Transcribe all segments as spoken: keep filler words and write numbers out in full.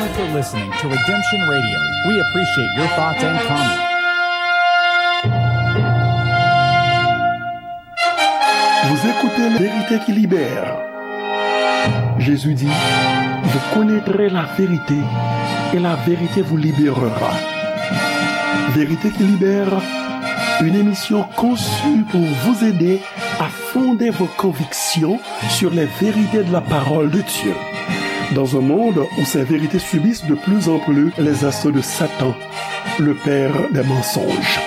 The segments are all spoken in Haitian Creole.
Thank you for listening to Redemption Radio. We appreciate your thoughts and comments. Vous écoutez La vérité qui libère. Jésus dit, vous connaîtrez la vérité et la vérité vous libérera. Vérité qui libère, une émission conçue pour vous aider à fonder vos convictions sur les vérités de la parole de Dieu. Dans un monde où ces vérités subissent de plus en plus les assauts de Satan, le père des mensonges.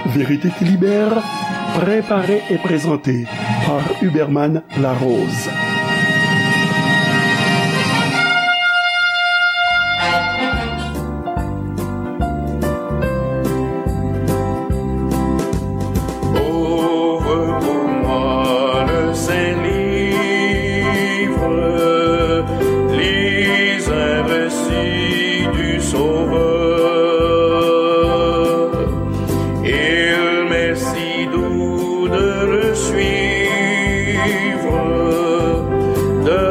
Vérité qui libère, préparée et présentée par Huberman Larose. Ouvre pour moi le saint livre, lis un récit du Sauveur. Il m'est si doux de le suivre, de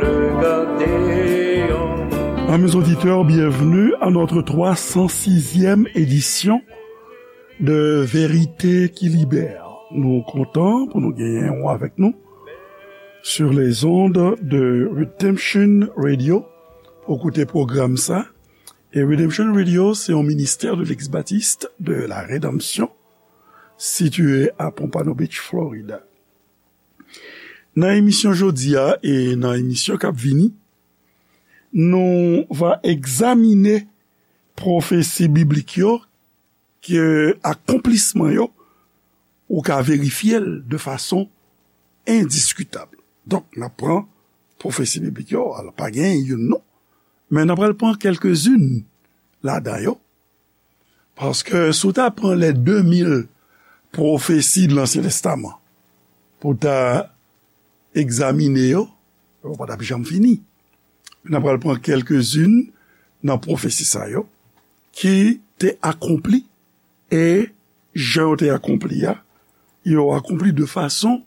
le garder en Amis auditeurs, bienvenue à notre trois cent sixième édition de Vérité qui Libère. Nou kontan pou nou genyen ou avèk nou sur les ondes de Redemption Radio pou koute pwogram sa. E Redemption Radio, se yon ministè de l'ex-baptiste de la Rédemption, situé à Pompano Beach, Florida. Nan emisyon jodi a e nan emisyon k ap vini, nou va egzamine pwofesi biblik yo, ke akonplisman yo, ou ka verifye l de fason endiskitab. Donk, n ap pran pwofesi biblik yo, alò, pa gen youn non, men n ap pral pran kèlkezin ladan yo, paske si w ta pran les deux mille pwofesi de Lansyen Testaman pou w ta egzamine yo, yo pa t ap janm fini. N ap pral pran kèlkezin nan pwofesi sa yo ki te akonpli, e jan yo te akonpli a, yo akonpli de fason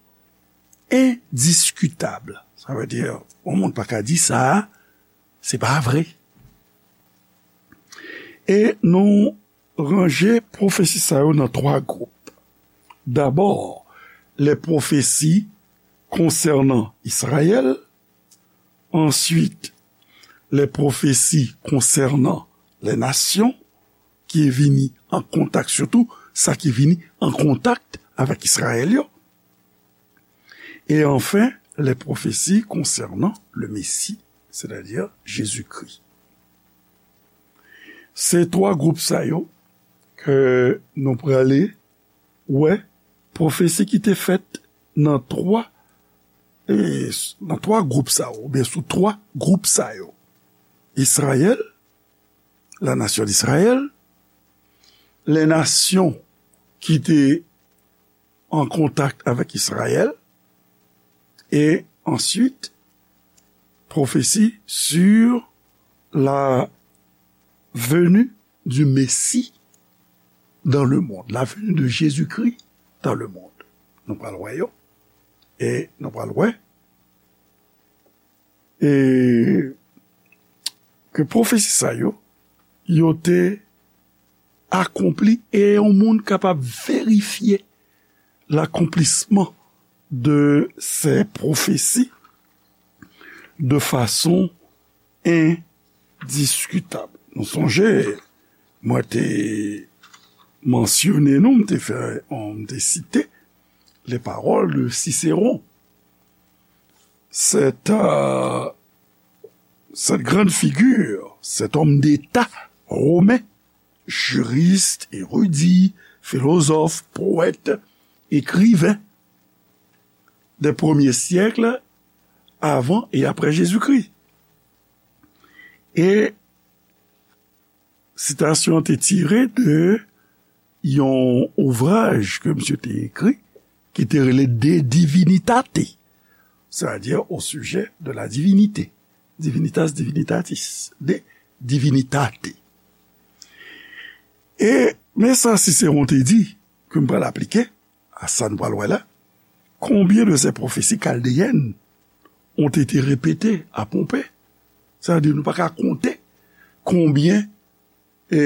endiskitab. Sa vle di, yon moun pa ka di sa a, se pa vre. E nou ranje pwofesi sa yo nan twa gwoup. Dabò, les prophéties concernant Israël, answit, les prophéties concernant les nations, ki vini an kontak, sitou sa ki vini an kontak avèk Izrayèl yo. E anfen, les prophéties concernant le Messie, c'est-à-dire Jésus-Christ. Se twa gwoup sa yo ke nou prale wè pwofesi ki te fèt nan twa, e, nan twa gwoup sa yo, oubyen sou twa gwoup sa yo. Izrayèl, la nation d'Israël, les nations ki te an kontak avèk Izrayèl, e answit, pwofesi sur la venue du Messie dans le monde, la venue de Jésus-Christ dans le monde. Nou pral wè yo, e nou pral wè, e ke pwofesi sa yo, yo te akonpli, e yon moun kapab verifye l'accomplissement de ces prophéties de façon indiscutable. Nou sonje, mwen te mansyone nou, m te fè, m te site les paroles de Cicéron. Cette, euh, cette grande figure, cet homme d'État romain, juriste, érudit, philosophe, poète, écrivain des premiers siècles avant et après Jésus-Christ. E sitasyon an te tire de yon ouvraj ke misye te ekri, ki te rele De Divinitate, c'est-à-dire au sujet de la divinité. Divinitas Divinitatis, De Divinitate. E men sa Cicéron te di, ke m pral aplike a sa n pral wè la. Combien de ces prophéties chaldéennes ont été répétées à Pompée Sa vle di nou pa ka konte konbyen e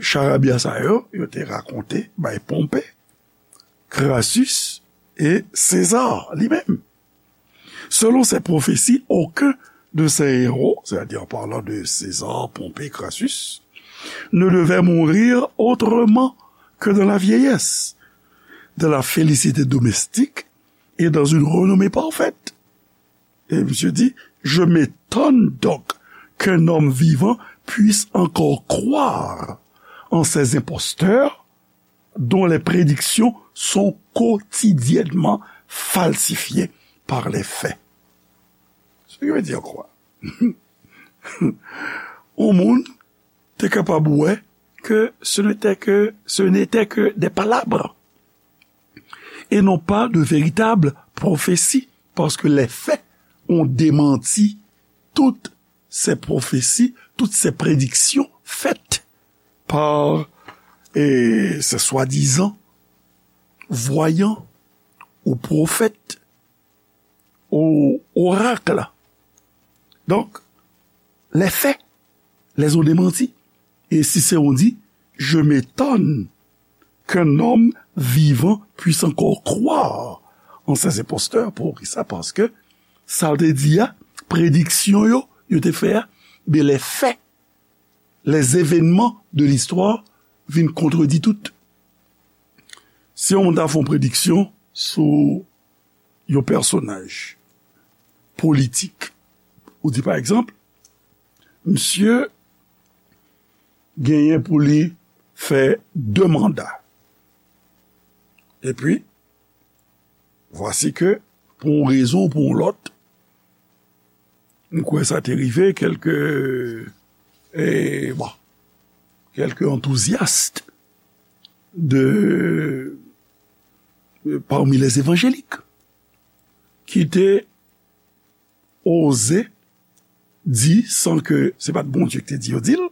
charabya sa yo, yo te rakonte bay Ponpe, Crassus e César li menm. Selon ces prophéties, aucun de ces héros, c'est-à-dire en parlant de César, Pompée, Crassus, ne devait mourir autrement que dans la vieillesse, dans la félicité domestique et dans une renommée parfaite. Et monsieur dit, je m'étonne donc qu'un homme vivant puisse encore croire en ces imposteurs dont les prédictions sont quotidiennement falsifiées par les faits. Ce qui veut dire quoi? Yon moun te kapab wè que ce n'était que, ce n'était que des palabres et non pas de véritables prophéties, parce que les faits ont démenti toutes ces prophéties, toutes ces prédictions faites par eh, ces soi-disant voyants ou prophètes ou oracles. Donc, les faits les ont démentis. Et Cicéron dit, je m'étonne qu'un homme vivant puisse encore croire en ces imposteurs. Poukisa? Paske sa l te di a, prediksyon yo, yo te fè a, ben, les faits, les événements de l'histoire vin kontredi tout. Si yon moun ta fè yon prediksyon sou yon pèsonaj politik, ou di, pa egzanp, misye genyen pou li fè de manda. Epi, vwasi ke, pou yon rezon ou pou yon lòt, m kwè sa te rive kèlke, eh, bon, kèlke antouzyas de, parmi les évangéliques ki te oze di, san ke se pa t Bondye ki te di yo di l,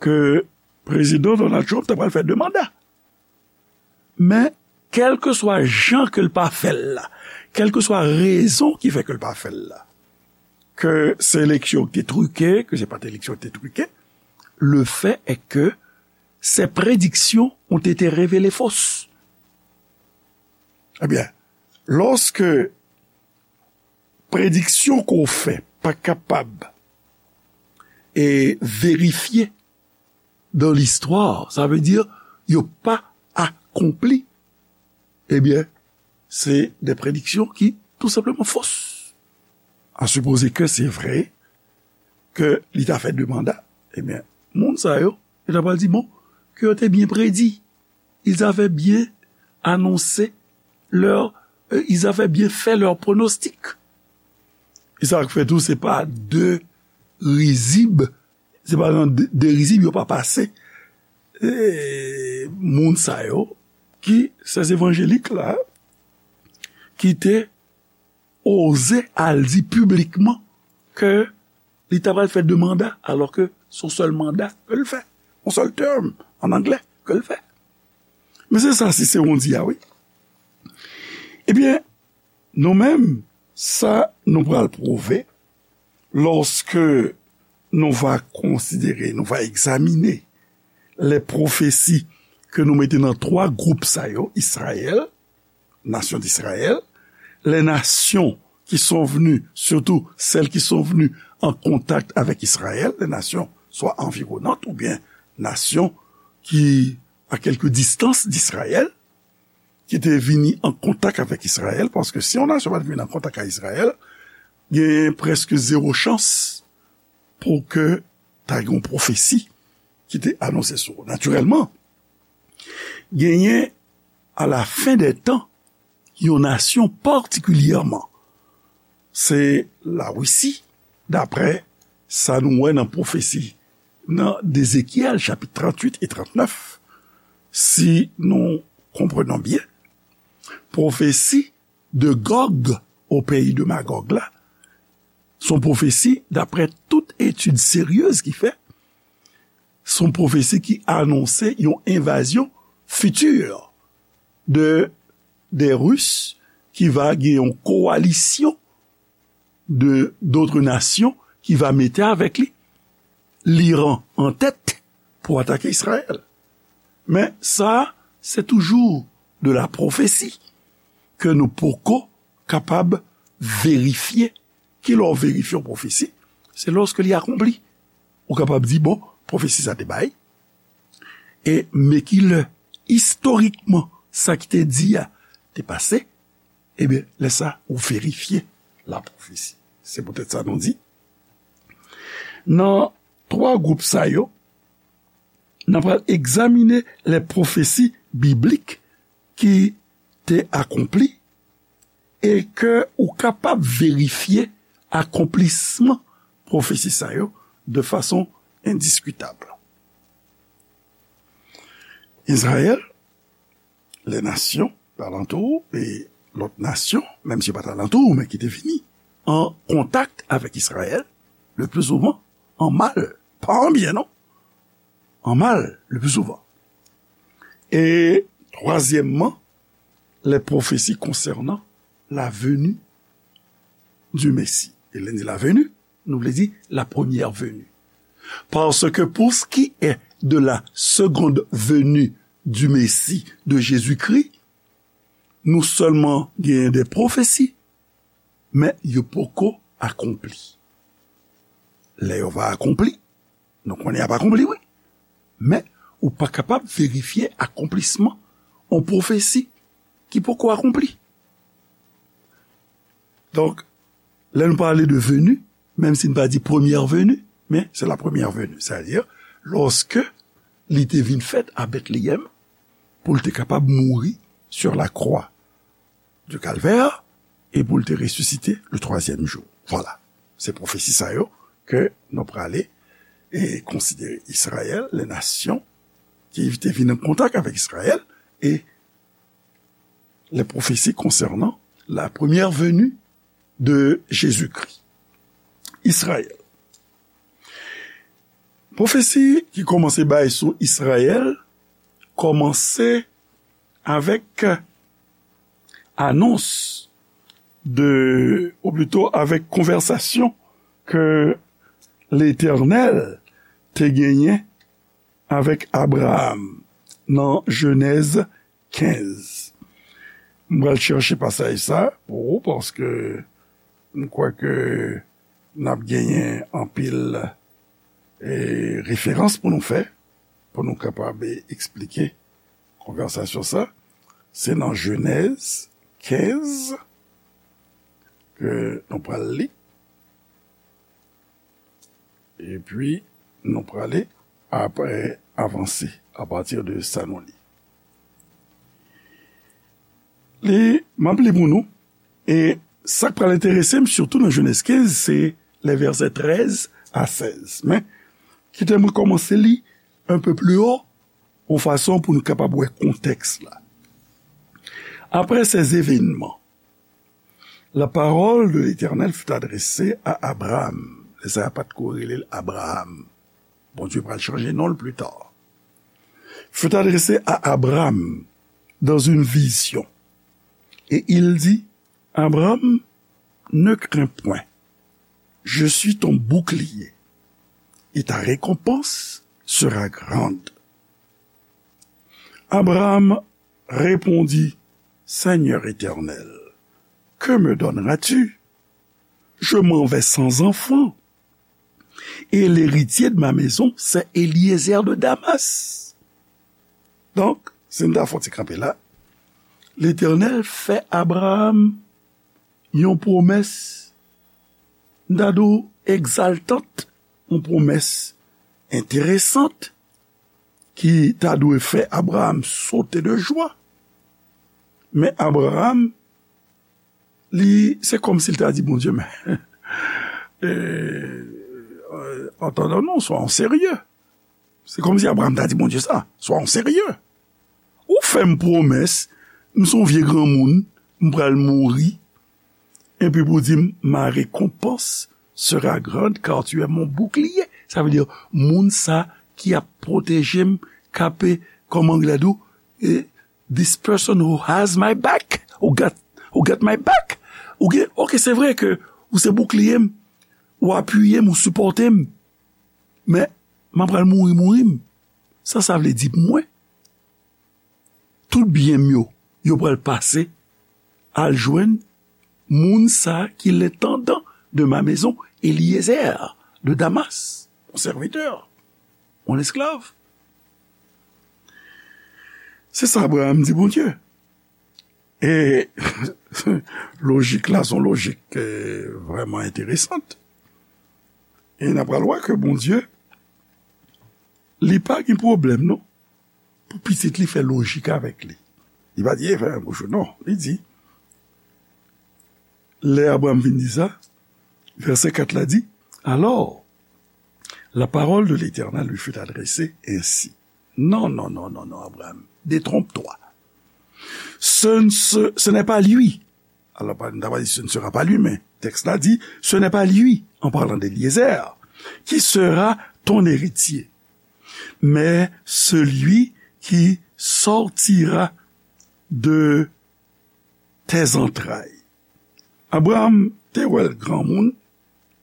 ke prezidan Donald Trump ta pral fè de manda. Men, kèlkeswa jan ke l pa fè l la, kèlkeswa rezon ki fè ke l pa fè l la, ke se eleksyon ki te trike, ke se pa t eleksyon ki te trike, le fait est que ces prédictions ont été révélées fausses. Ebyen, lòske prediksyon ke w fè pa kapab e verifye dans l'histoire, sa vle di yo pa akonpli, ebyen, se de prediksyon ki tou senpleman fos. A sipoze ke se vre ke li ta fè de manda, ebyen, moun sa yo, yo ta pral di, bon, ke yo te byen predi. Ils avaient bien annoncé leur, euh, ils avaient bien fait leur pronostic. E sa k fè tou, se pa de rizib, se pa nan de, de rizib yo pa pase. E moun sa yo, ki, se evanjelik la, ki te oze al di piblikman ke li ta pral fè de manda, alò ke se yon sèl manda ke l fè, yon sèl term an anglè ke l fè. Men se sa Siseron di a, wi. Ebyen, nou menm, sa nou pral pwouve lòske nou va konsidere, nou va egzamine les prophéties ke nou mete nan twa gwoup sa yo, Israël, nation d'Israël, les nations qui sont venues, surtout celles qui sont venues en contact avec Israël, les nations soit environnantes ou bien nations qui à quelque distance d'Israël, ki te vini an kontak avèk Izrayèl, paske si yon nasyon pa t vin an kontak ak Izrayèl, gen prèske zewo chans pou ke ta gen yon pwofesi ki te anonse sou ou. Natirèlman, genyen a la fen dè tan yon nasyon patikilyèman, se Larisi, daprè sa nou wè nan pwofesi nan Ezekyèl chapit tranntuit e trannèf, si nou konprenan byen, pwofesi de Gòg o peyi de Magòg la, se yon pwofesi, daprè tout etid seryez ki fè, se yon pwofesi ki anonse yon envazyon fiti de, des Russes, ki va gen yon kowalisyon de, d'autres nations ki va mete avèk li, l'Iran an tèt, pou atake Izrayèl. Men sa, se toujou de la pwofesi ke nou poko kapab verifye. Kilè w verifye yon pwofesi? Se lòske li akonpli. Ou kapab di, bon, pwofesi sa te bay, e men kilè, istorikman, sa ki te di a te pase, ebyen, lè sa, ou verifye la pwofesi. Se poutèt sa nou di, nan twa gwoup sa yo, n ap pral egzamine lè pwofesi biblik ki te akonpli e ke ou kapab verifye akonplisman pwofesi sa yo de fason endiskitab. Izrayèl, lè nasyon alantou e lòt nasyon, menm si yo pa t alantou, men ki te vini an kontak avèk Izrayèl, le pli souvan, an mal, pa an byen, non, an mal, le pli souvan. E twazyèmman, les prophéties concernant la venue du Messie. E lè n di la venue, nou vle di la première venue. Parce que pour ce qui est de la seconde venue du Messie, de Jésus-Christ, nou sèlman genyen de pwofesi, men yo poko akonpli. Lè yo va akonpli, nou konnen y ap akonpli, wi. Men ou pa kapab verifye akonplisman yon pwofesi ki poko akonpli. Donk, lè nou pale de veni, menm si n pa di premyè veni, men se la premyè veni. Sètadi, lòske li te vin fèt a Betleyèm, pou l te kapab mouri sur la croix du Calvaire, e pou l te resisite le twazyèm jou. Vwala. Se pwofesi sa yo ke nou prale e konsidere Izrayèl, les nations ki te vin an kontak avèk Izrayèl, e les prophéties concernant la première venue de Jésus-Christ. Izrayèl. Pwofesi ki kòmanse bay sou Izrayèl kòmanse avèk anons de, ou plito avèk konvèsasyon ke Letènèl te genyen avèk Abraram nan Jenèz kenz. M pral chèche pasaj sa pou ou, paske m kwè ke n ap genyen anpil, e, referans pou nou fè, pou nou kapab eksplike konvèsasyon sa. Se nan Jenèz kenz ke nou pral li. Epi, nou prale apre avanse apati de sa nou li. Li, m ap li pou nou, e sa k pral enterese m, sitou nan Jenèz kenz, se lè vèsè trèz a sèz. Men, kite mwen kòmanse li un peu plus haut, yon fason pou nou kapab wè kontèks la. Après ces événements, la parole de l'Éternel fut adressée à Abraham. Lè sa a pa t ko rele l Abraham. Bondye pral chanje non l pli ta. Fut adressée à Abraham dans une vision. Et il dit, Abraham, ne crains point. Je suis ton bouclier. Et ta récompense sera grande. Abraham répondit, Seigneur Éternel, que me donneras-tu? Je m'en vais sans enfant, et l'héritier de ma maison, c'est Eliezer de Damas. Donk, si n ta fè yon ti kanpe la, Letènèl fè Abraram yon pwomès, n ta di w egzaltant, yon pwomès enteresant, ki ta dwe fè Abraram sote de jwa. Men Abraram, li, se kòmsi l ta di Bondye, men, e, entendons-nous, soyons sérieux. Se kòmsi Abraram ta di Bondye sa, soyons sérieux. Ou fè m pwomès, m se yon vye granmoun, m pral mouri, epi pou di m, ma récompense sera grande, car tu es mon bouclier. Sa vle di, moun sa ki ap pwoteje m, k ap, kòman anglè di w, e, this person who has my back, who got, who got my back. Ou gen, ok, se vre ke ou se boukliye m, ou apiye m, ou sipòte m. Men, m ap pral mouri, mouri m. Sa sa vle di pou mwen? Tout byen m yo, yo pral pase al jwenn moun sa ki l'intendant de ma maison, Eliezer de Damas, mon serviteur, mon esclave. Se sa Abraham di Bondye. E lojik la, se yon lojik eh, vrèman enteresan. E n ap pral wè ke Bondye, li pa gen pwoblèm, non, pou pitit li fè lojik avèk li. Li pa di, e fè yon bouch, non. Li di, lè Abraham vin di sa, vèsè kat la di, alors, la parole de l'Éternel lui fut adressée ainsi. Non, non, non, non, non, Abraham, détrompe-toi. Ce, ne se- ce n'est pas lui. Alors, pa- n ta pa di ce ne sera pas lui, men tèks la di, ce n'est pas lui, en parlant d'Éliézer, qui sera ton héritier, mais celui qui sortira de tes entrailles. Abraham te wè l granmoun,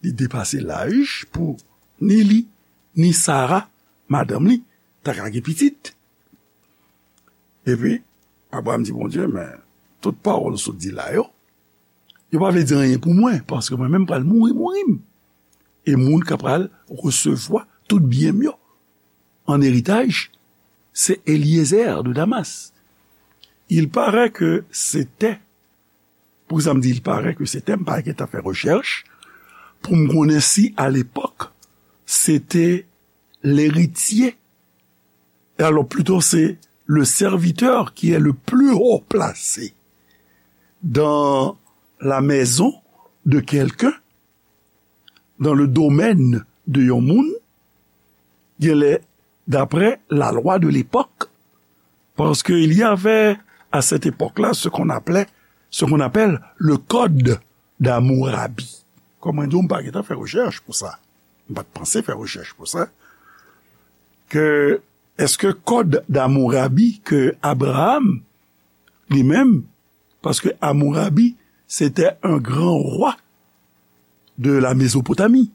li depase laj pou ni li, ni Sara, madanm li, ta ka gen pitit. Epi, Abraham di Bondye, men tout pawòl ou sot di la yo, yo pa vle di anyen pou mwen, paske mwen menm pral mouri, mouri m. E moun k ap pral resevwa tout byen m yo an eritaj, se Eliezer de Damas. Il paraît que c'était, pou sa m di il paraît que c'était, m pa gentan fè rechèch pou m konnen si à l'époque c'était l'héritier. Et alors plutôt c'est le serviteur qui est le plus haut placé dans la maison de quelqu'un, dans le domaine de yon moun, genlè d'après la loi de l'époque, parce qu'il y avait à cette époque-là ce qu'on appelait, ce qu'on appelle le code d'Hammurabi. Kòm mwen di w, m pa gentan fè rechèch pou sa. M pa t panse fè rechèch pou sa. Ke, èske kòd d'Hammurabi ke Abraham, li menm, paske Hammurabi, c'était un grand roi de la Mésopotamie,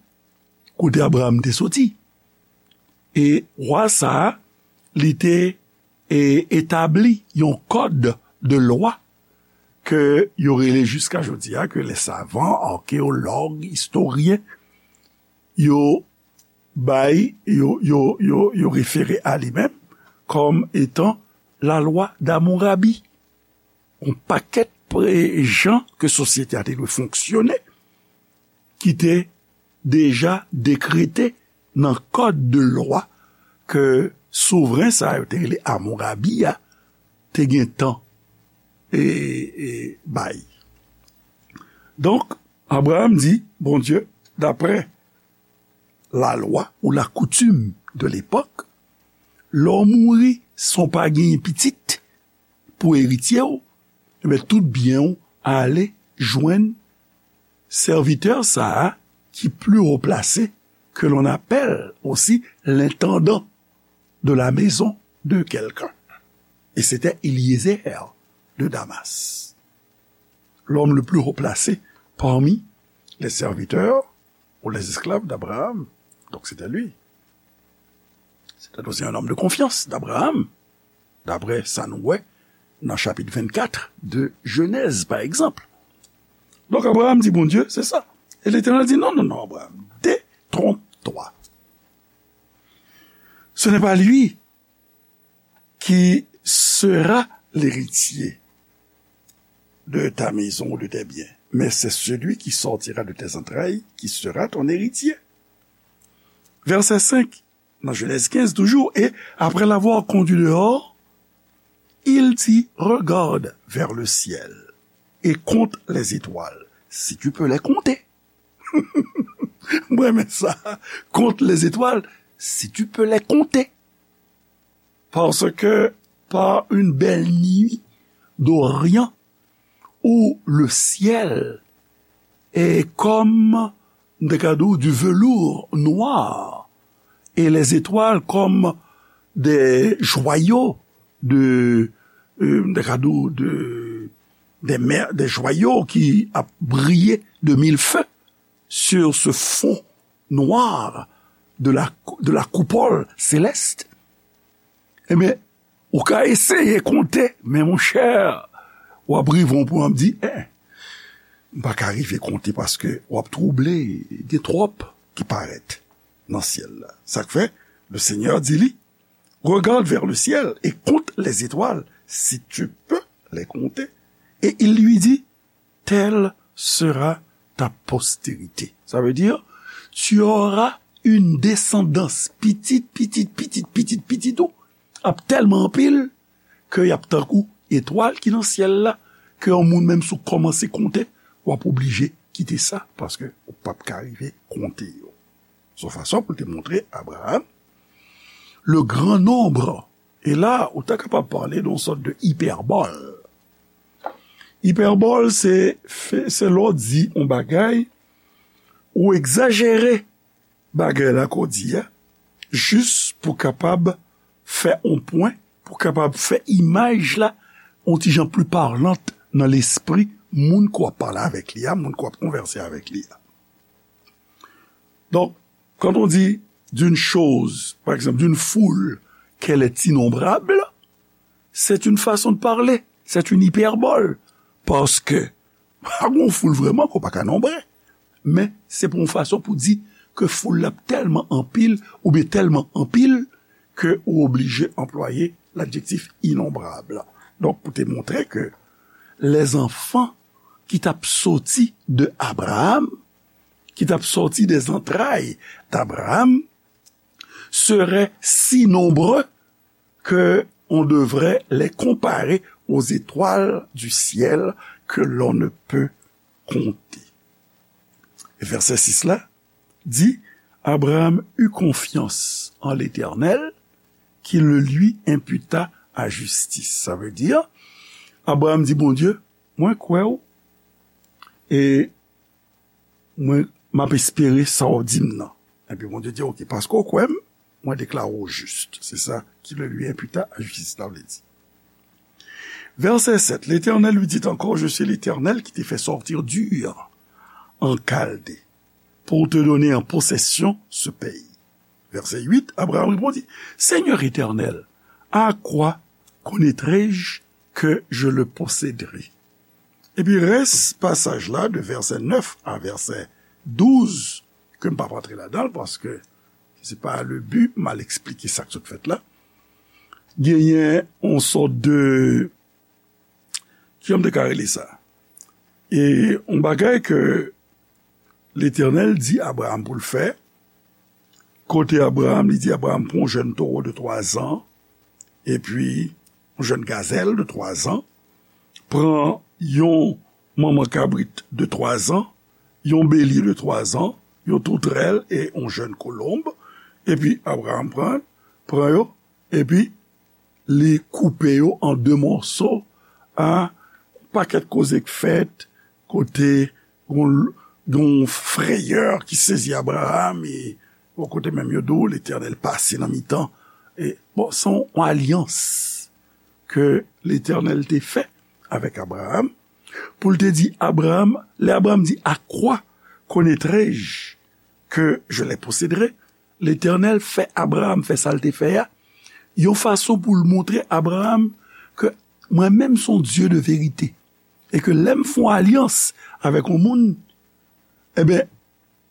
kote Abraham te soti. E wa sa a, li te e, etabli yon kòd de lwa ke yo rele jiska jodi a, ke les savants, archéologues, historiens, yo bay, yo, yo, yo, yo refere a li menm kòm etan la loi d'Hammurabi. Yon pakèt pre- jan ke sosyete a te dwe fonksyone, ki te deja dekrete nan kòd de lwa ke souvren sa yo te rele Amourabi a te gentan e, e bay. Donk, Abraham di, Bondye, daprè lalwa ou lakoutim de lepòk, lè w mouri san w pa genyen pitit pou eritye w, ebyen, tout byen w ale jwenn sèvitè sa a ki pli wo plase, que l'on appelle aussi l'intendant de la maison de quelqu'un. Et c'était Éliézer de Damas, l'homme le plus haut placé parmi les serviteurs ou les esclaves d'Abraham. Donc c'était lui. C'était aussi un homme de confiance d'Abraham, d'après sa nou wè nan chapit vennkat de Jenèz, pa egzanp. Donk, Abraham di Bondye, se sa. E Letènèl di, non, non, non, Abraham, détrompe-toi. Ce n'est pas lui qui sera l'héritier de ta maison ou de tes biens, mais c'est celui qui sortira de tes entrailles qui sera ton héritier. Verset cinq, dans Genèse quinze toujours, et après l'avoir conduit dehors, il dit, regarde vers le ciel et compte les étoiles, si tu peux les compter. Mwen renmen sa. Compte les étoiles, si tu peux les compter. Parce que par une belle nuit d'Orient où le ciel est comme, m te ka di w, du velours noir et les étoiles comme des joyaux de, euh, m te ka di w, de, des mer- des joyaux qui a brillé de mille feux. sur ce fond noir de la, de la coupole céleste, ebyen, ou ka eseye konte, men monchè, w ap rive yon pwen, w ap di, en, m pa ka rive konte paske w ap twouble, gen twòp ki parèt nan syèl la. Sa k fè, le Seigneur di li, regarde vers le ciel et compte les étoiles, si tu peux les compter. Et il lui dit, telle sera ta postérité. Sa vle di, tu auras une descendance, pitit, pitit, pitit, pitit, pitit ou ap tèlman anpil ke y ap tankou etwal ki nan syèl la, ke yon moun menm si w kòmanse konte, w ap oblije kite sa, paske ou p ap ka rive konte yo. Se yon fason pou l te montre Abraham le grand nombre. E la, ou ta kapab pale de yon sòt de ipèbòl. Ipèbòl, se, se lè w di yon bagay, ou egzajere bagay la ke w di a, jis pou kapab fè yon pwen, pou kapab fè imaj la yon ti jan pli palant nan lespri moun ke w ap pale avèk li a, moun ke w ap konvèse avèk li a. Donc, quand on dit d'une chose, par exemple, d'une foule, qu'elle est innombrable, c'est une façon de parler, c'est une hyperbole. Paske, pa gen foul vrèman ke w pa ka nonbre. Men, se pou yon fason pou di ke foul la tèlman anpil, oubyen tèlman anpil, ke ou oblije anplwaye ladjektif inonbrab. Donk, pou te montre ke lèzanfan ki t ap soti de Abraham, ki t ap sòti des entrailles d'Abraham, seraient si nombreux que on devrait les comparer aux étoiles du ciel que l'on ne peut compter. Vèsè sis la di, Abraham eut confiance en l'Éternel, qui le lui imputa à justice. Sa vle di, Abraham di Bondye, mwen kwè w, e mwen, m ap espere sa w di m nan. Epi Bondye di, oke, paske w kwè m, mwen deklare w jis. Se sa, qui le lui imputa à justice, sa vle di. Verset sept, l'Éternel lui dit encore, je suis l'Éternel qui t'ai fait sortir d'Ur en Chaldée pour te donner en possession ce pays. Verset huit, Abraham répondit, Seigneur Éternel, à quoi connaîtrai-je que je le posséderai? Epi rès pasaj la, de vèsè nèf a vèsè douz, ke m p ap antre ladan l, paske se pa le bi, m al eksplike sa k sot fèt la. Genyen yon sòt de, kijan m te ka rele sa? E yon bagay ke Letènèl di Abraham pou l fè, kote Abraham, li di Abraham, pran yon jèn towo de twa zan, epi yon jèn gazèl de twa zan, pran yon manman kabrit de twa zan, yon belye de twa zan, yon toutrèl e yon jèn kolonb, epi Abraham pran, pran yo, epi li koupe yo an de mòso, a, pakèt koze k fèt, kote gon, gon frayè ki sezi Abraham, e bò kote menm yo di w, Letènèl pase nan mitan. E, bon, se yon alyans ke Letènèl te fè avèk Abraham, pou l te di Abraham, lè Abraham di, à quoi connaîtrai-je que je les posséderai? Letènèl fè Abraham fè sa l te fè a, yon fason pou l montre Abraham ke mwen menm se yon Dye de verite, e ke lè m fè yon alyans avèk yon moun, enben,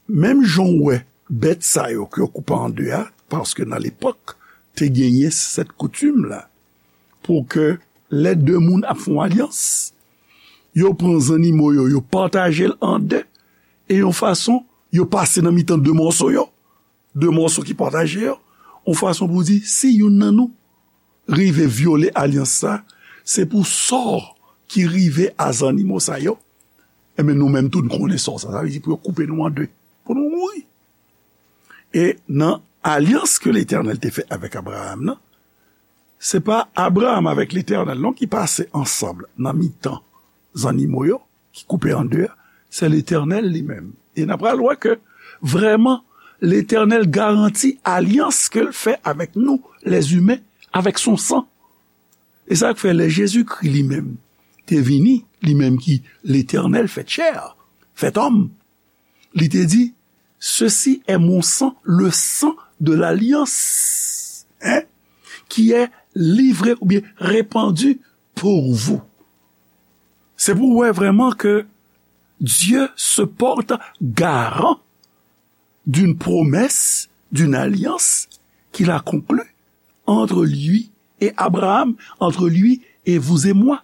menm jan w wè bèt sa yo ke yo koupe an de a, paske nan lepòk, te genyen sèt koutim la, pou ke lè de moun ap fè yon alyans, yo pran zannimo yo, yo pataje l an de, e yon fason, yo pase nan mitan de mòso yo, de mòso ki pataje yo, yon fason pou di, si youn nan nou rive vyole alyans sa, se pou sò ki rive a zannimo sa yo, enben, nou menm tou, n konnen sò sa. Sa vle di pou yo koupe nou an de, pou nou mouri. E nan alyans ke Letènèl te fè avèk Abraham nan, se pa Abraham avèk Letènèl non ki pase ansanm nan mitan zannimo yo, ki koupe an de a, se Letènèl li menm. E n a pral wè ke vrèman, Letènèl garanti alyans ke l fè avèk nou, lèzimen, avèk son san. E sa k fè lè Jezikri li menm te vini, li menm ki Letènèl fèt chè, fèt òm, Li te di, ceci est mon sang, le sang de l'alliance, hein, qui est livré ou bien répandu pour vous. Se pou w wè vrèman ke Dieu se porte garant d'une promesse, d'une alliance qu'il a conclue entre lui et Abraham, entre lui et vous et moi.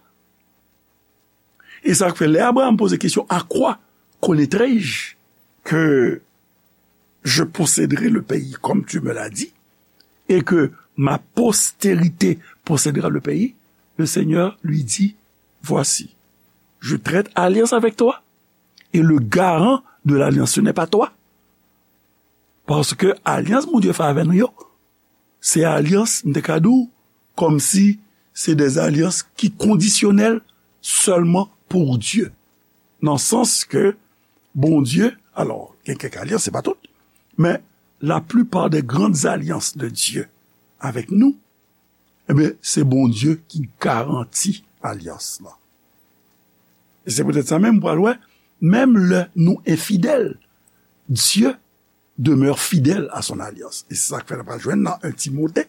E sa k fè lè Abraham poze kesyon, à quoi connaîtrai-je que je posséderai le pays comme tu me l'as dit, et que ma postérité possédera le pays, le Seigneur lui dit, voici, je traite alliance avec toi, et le garant de l'alliance, ce n'est pas toi. Paske alyans Bondye fè avè nou yo, se alyans, m te ka di w, kòmsi se de alyans ki kondisyonèl sèlman pou Dye. Nan sans ke Bondye, alò, gen kèk alyans, se pa tout, men la plupart des grandes alliances de Dieu avec nous, ebyen, se Bondye ki garanti alyans lan. E se poutèt sa menm, pral wè, menm lè nou enfidèl, Dieu demeure fidèle à son alliance. E se sa k fè n pral jwenn nan un Timote,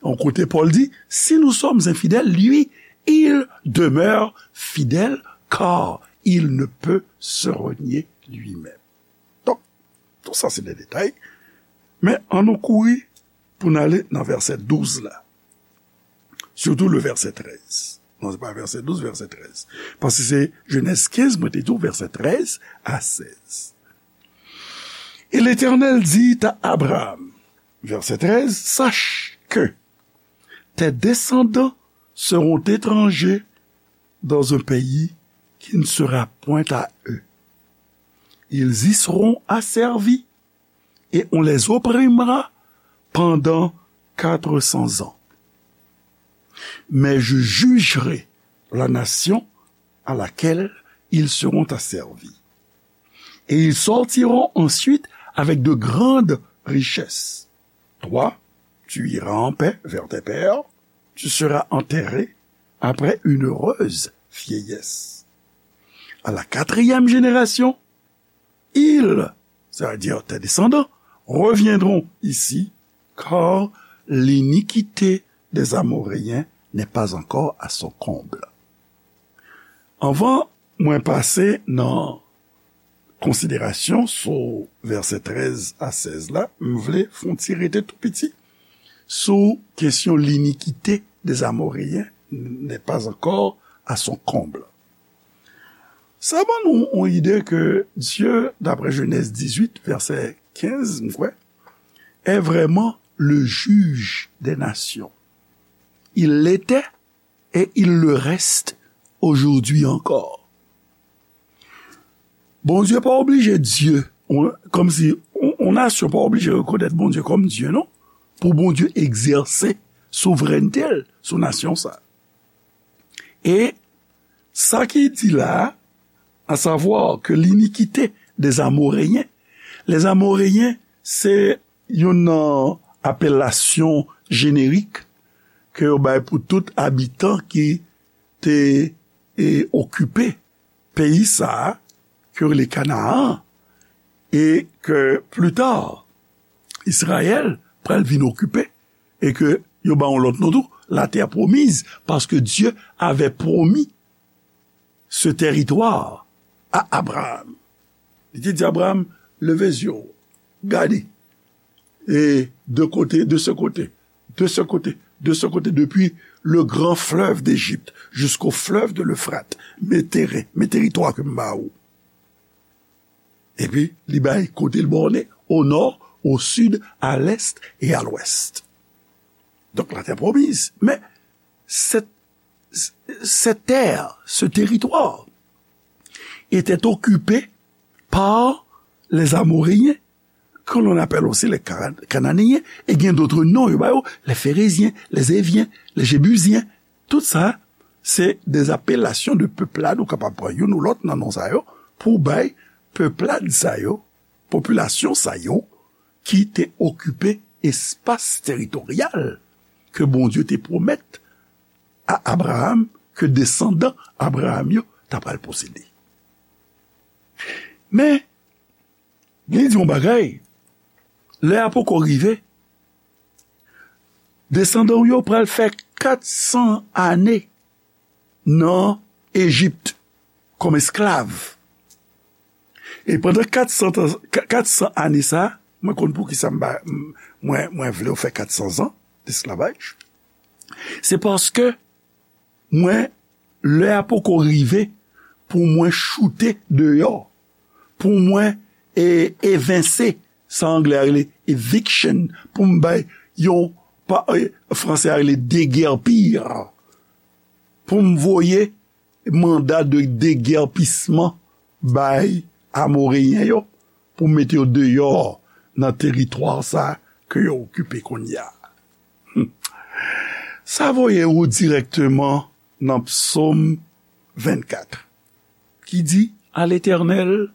yon kote Pòl di, si nous sommes infidèles, lui, il demeure fidèle, car il ne peut se renier lui-même. Donk, tout sa se de detay. Men, ann nou kouri pou n ale nan vèsè douz la. Surtout le verset treize. Non, se pa vèsè douz, vèsè treize. Paske se Genèse quinze, mwen te di w, vèsè treize à seize. Et l'Éternel dit à Abraham, verset treize, sache que tes descendants seront étrangers dans un pays qui ne sera point à eux. Ils y seront asservis et on les opprimera pendant quatre cents ans. Mais je jugerai la nation à laquelle ils seront asservis. Et ils sortiront ensuite avec de grandes richesses. Toi, tu iras en paix vers tes pères, tu seras enterré après une heureuse vieillesse. À la quatrième génération, ils, c'est-à-dire tes descendants, reviendront ici, car l'iniquité des Amoréens n'est pas encore à son comble. Anvan mwen pase nan konsiderasyon sou vèsè trèz a sèz la, m vle fè yon ti rete tou piti sou kesyon l'iniquité des Amoréens n'est pas encore à son comble. Sa ban nou yon ide ke Dye, daprè Jenèz dizuit, vèsè kenz, m kwè, est vraiment le juge des nations. Il l'était et il le reste aujourd'hui encore. Bondye pa oblije Dye, on, kòmsi on, on nasyon pa oblije rekonèt Bondye kòm Dye, non. Pou Bondye egzèse souvrènte l sou nasyon sa. E sa ki di la, à savoir que l'iniquité des Amoréens, les Amoréens, se youn nan apelasyon jenerik ke yo bay pou tout abitan ki te, e, okipe peyi sa a, ke yo rele Kanaan, e ke pli ta, Izrayèl pral vin okipe, e ke yo ba yon lòt non tou, la terre promise, parce que Dieu avait promis ce territoire à Abraham. Li te di Abraham, leve zye w, gade, e de kote, de ce côté, de ce côté, de ce côté, depuis le grand fleuve d'Égypte jusqu'au fleuve de l'Euphrate, men teren, men teritwa ke m ba ou. Epi, li bay kote l bòne, au nord, au sud, à l'est et à l'ouest. Donc, la terre promise. Mais cette, cette terre, ce territoire, était occupé par les Amoréens, que l'on appelle aussi les Cana-, Cananéens, et gen d'autres noms, yo ba yo, les Phérésiens, les Éviens, les Jébusiens. Tout sa, se de apelasyon de peuplade, ou kapab pran youn ou lòt nan non sa yo, pou bay peuplade sa yo, popilasyon sa yo, ki te okipe espas teritoryal ke Bondye te pwomèt a Abraham, ke desandan Abraham yo ta pral posede. Men, Li di yon bagay, lè a poko rive, desandan w yo pral fè kat san ane nan Ejip kòm esklav. E pandan kat san tan, ka-, kat san ane sa, mwen konn poukisa m ba, m, mwen, mwen vle w fè kat san zan desklavaj. Se paske mwen, lè a poko rive pou mwen choute deyò, pou mwen, e, evense, sa anglè a rele eviction, pou m bay yon, pa, e, franse a rele déguerpir, pou m voye manda de degèpisman bay Amoreyen yo pou mete yo deyò nan teritwa sa ke yo okipe kounye a. Sa voye ou dirèkteman nan Psaume vingt-quatre, ki di, À l'Éternel,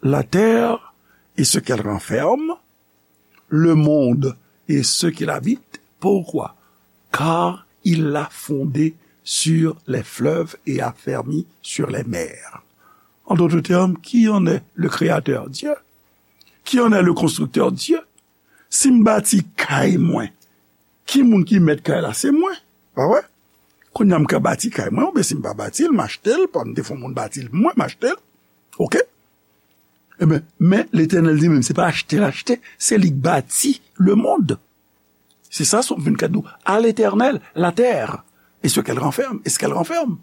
la terre et ce qu'elle renferme, le monde et ceux qui l'habitent. Pourquoi? Car il l'a fondée sur les fleuves et affermi sur les mers. En d'autres termes, qui en est le créateur? Dieu. Qui en est le constructeur? Dieu. Si m bati kay mwen, ki moun ki mèt kay la? Se mwen. Pa vre? Kounye a m ka bati kay mwen, oubyen si m pa bati l, m achte l, pa m te fè yon moun bati l pou mwen, m achte l. Oke? Ebyen, men Letènèl li menm, se pa achte l achte, se li k bati lemonn. Se sa Sòm vennkat di w, à l'Éternel, la terre, et ce qu'elle renferme, et ce qu'elle renferme.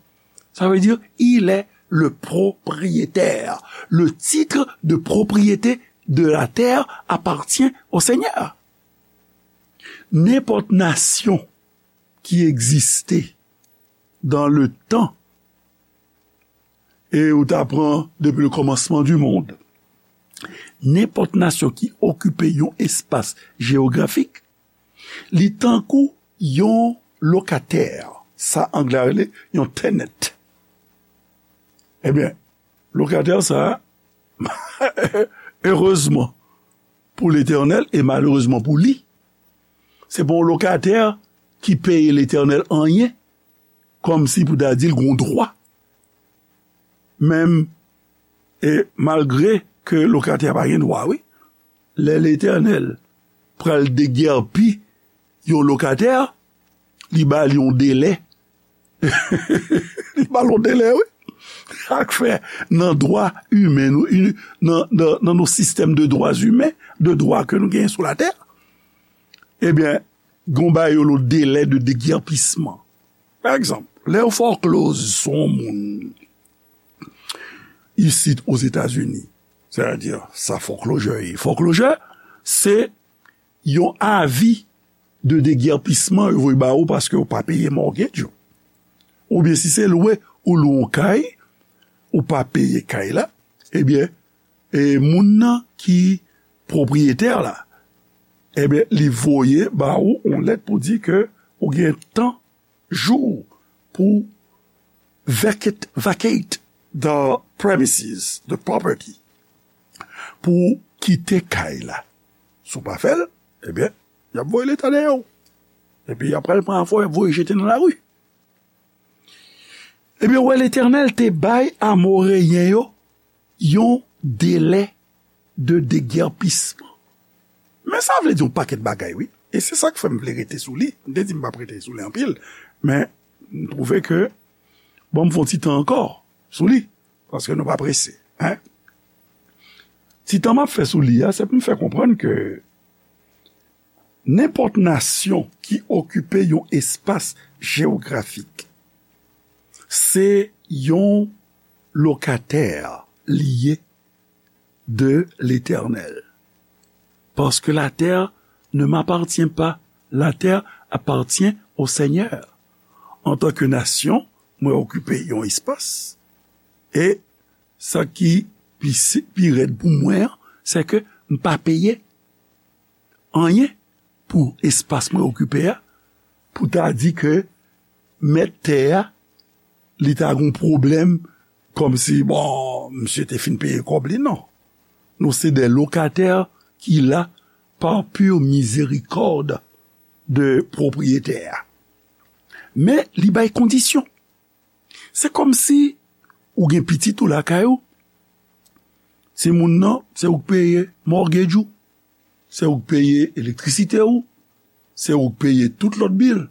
Ça veut dire, il est le propriétaire. Le titre de propriété de la terre appartient au Seigneur. Nenpòt nasyon ki egziste dans le temps, e ou ta pran depuis le commencement du monde, nenpòt nasyon ki okipe yon espas jewografik, li tankou yon lokatè, sa anglè a rele yon tenant. Ebyen, lokatè sa, erezman pou Letènèl e malerezman pou li, se pa yon lokatè ki peye Letènèl anyen, kòmsi pou ta di l gen dwa. Menm, e malgre ke lokatè a pa gen dwa, wi, lè Letènèl pral degèpi yon lokatè, li ba l yon delè. Li ba l yon delè, wi. Sa k fè nan dwa imen nou, i-, nan, nan, nan nos systèmes de droits humains, de dwa ke nou genyen sou latè, ebyen, gen yon bagay yo rele delè de déguerpissement. Pa egzanp, lè yo foreclose sou yon moun isit Ozetazini, sètadi sa foreclosure ye. Foreclosure, se yon avi de déguerpissement yo voye ba ou paske ou pa peye mortgage ou. Oubyen si se lwe ou lwe yon kay, ou pa peye kay la, ebyen, e moun nan ki pwopriyetè la, ebyen, li voye ba ou yon lèt pou di ke ou gen tan jou pou vacate, vacate the premises, the property, pou kite kay la. Si w pa fè l, ebyen, y ap voye Leta dèyè w. Epi y ap pral pran afè w, y ap voye jete nan lari. Ebyen, w wè, Letènèl te bay Amoreyen yo yon delè de degèpisman. Men sa vle di yon pakèt bagay, wi. E se sa k fè m vle rete sou li. M te di m p ap rete sou li anpil, men m twouve ke, bon, m fè yon ti tan ankò sou li, paske nou pa prese, en. Ti tan m ap fè sou li a, se pou m fè konprann ke nenpòt nasyon ki okipe yon espas jewografik, se yon lokatè li ye de Letènèl. Parce que la terre ne m'appartient pas, la terre appartient au Seigneur. Antanke nasyon, mwen okipe yon espas, e sa ki pi, pi rèd pou mwen an, se ke m pa peye anyen pou espas mwen okipe a, pou ta di ke mèt tè a, li ta gon pwoblèm, kòmsi, bon, misye te fin peye kòb li, non. Nou se des locataires qui là par pure miséricorde de pwopriyetè a. Men, li bay kondisyon. Se kòmsi ou gen pitit ou lakay ou, Timoun nan, se ou k peye mortgage ou, se ou k peye elektrisite ou, se ou k peye tout lòt bil.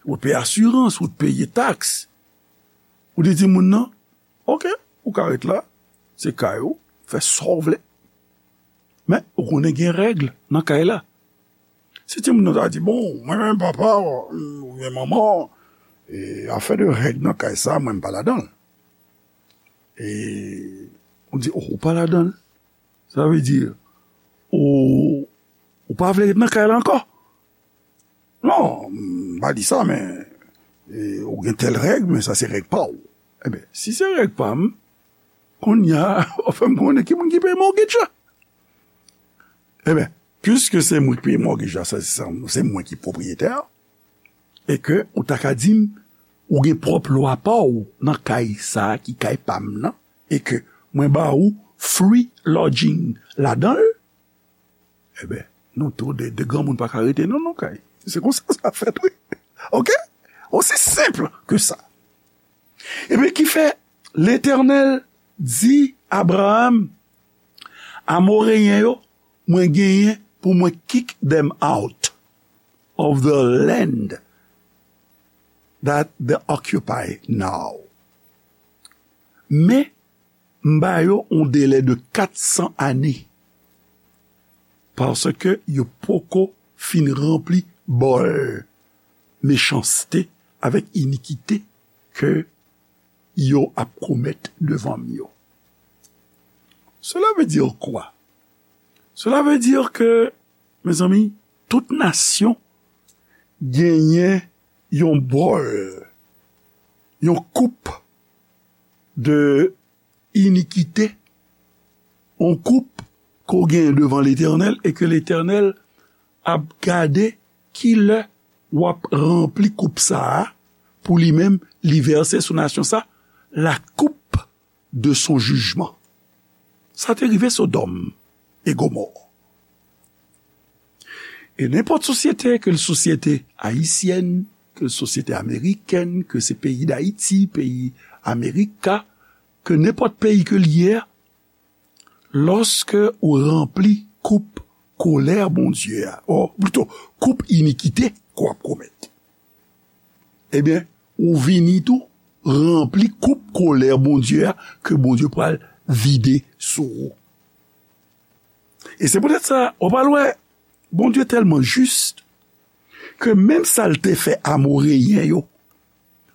Ou peye asirans, ou peye taks. Ou di timoun nan, "Oke, ou ka ret la, se kay ou, fè sa w vle." Men, ou konnen gen règ nan kay la. Si timoun nan ta di, "Bon, mwen menm papa, oubyen manman, e afè de règ nan kay sa, mwen m pa ladan l." E ou di, "Oh, ou pa ladan l?" Sa vle di, ou, ou pa vle ret nan kay la ankò? Non, m pa di sa, men, e, ou gen tèl règ, men sa se règ pa w. Ebyen, si se règ pa m, kounye a, w ap fè m konnen ki moun ki peye mortgage la. Ebyen, piske se mwen ki peye mortgage la, sa, se, se mwen ki pwopriyetè, e ke ou ta ka di m, ou gen pwòp lwa pa w nan kay sa a ki kay pa m nan, e ke mwen ba ou free lodging ladan l, ebyen, nou tou de, de granmoun pa ka rete non, nan kay. Se konsa sa fèt, wi. Oke? Osi senp ke sa. Ebyen, ki fè Letènèl di Abraram, Amoreyen yo, mwen genyen pou mwen kick them out of the land that they occupy now. Men, m ba yo yon delè de kat san ane, paske yo poko fin ranpli bòl mechanste avèk inikite ke yo ap komèt devan m yo. Cela veut dire quoi? Cela veut dire que, mezanmi, tout nasyon genyen yon bòl, yon koup de inikite, yon koup ke w genyen devan Letènèl e ke Letènèl ap gade ki lè w ap ranpli koup sa a pou li menm, li vèse sou nasyon sa, la coupe de son jugement. Sa te rive Sodòm e Gomò. E nenpòt sosyete, ke l sosyete ayisyèn, ke l sosyete amerikèn, ke se peyi Dayiti, peyi Amerika, ke nenpòt peyi ke l ye a, lòske ou ranpli koup kolè Bondye a, o plito, koup inikite ke w ap komèt, ebyen, ou vini tou ranpli koup kolè Bondye a ke Bondye pral vide sou ou. E se poutèt sa, w pral wè, Bondye tèlman jis ke menm sa l te fè Amoreyen yo,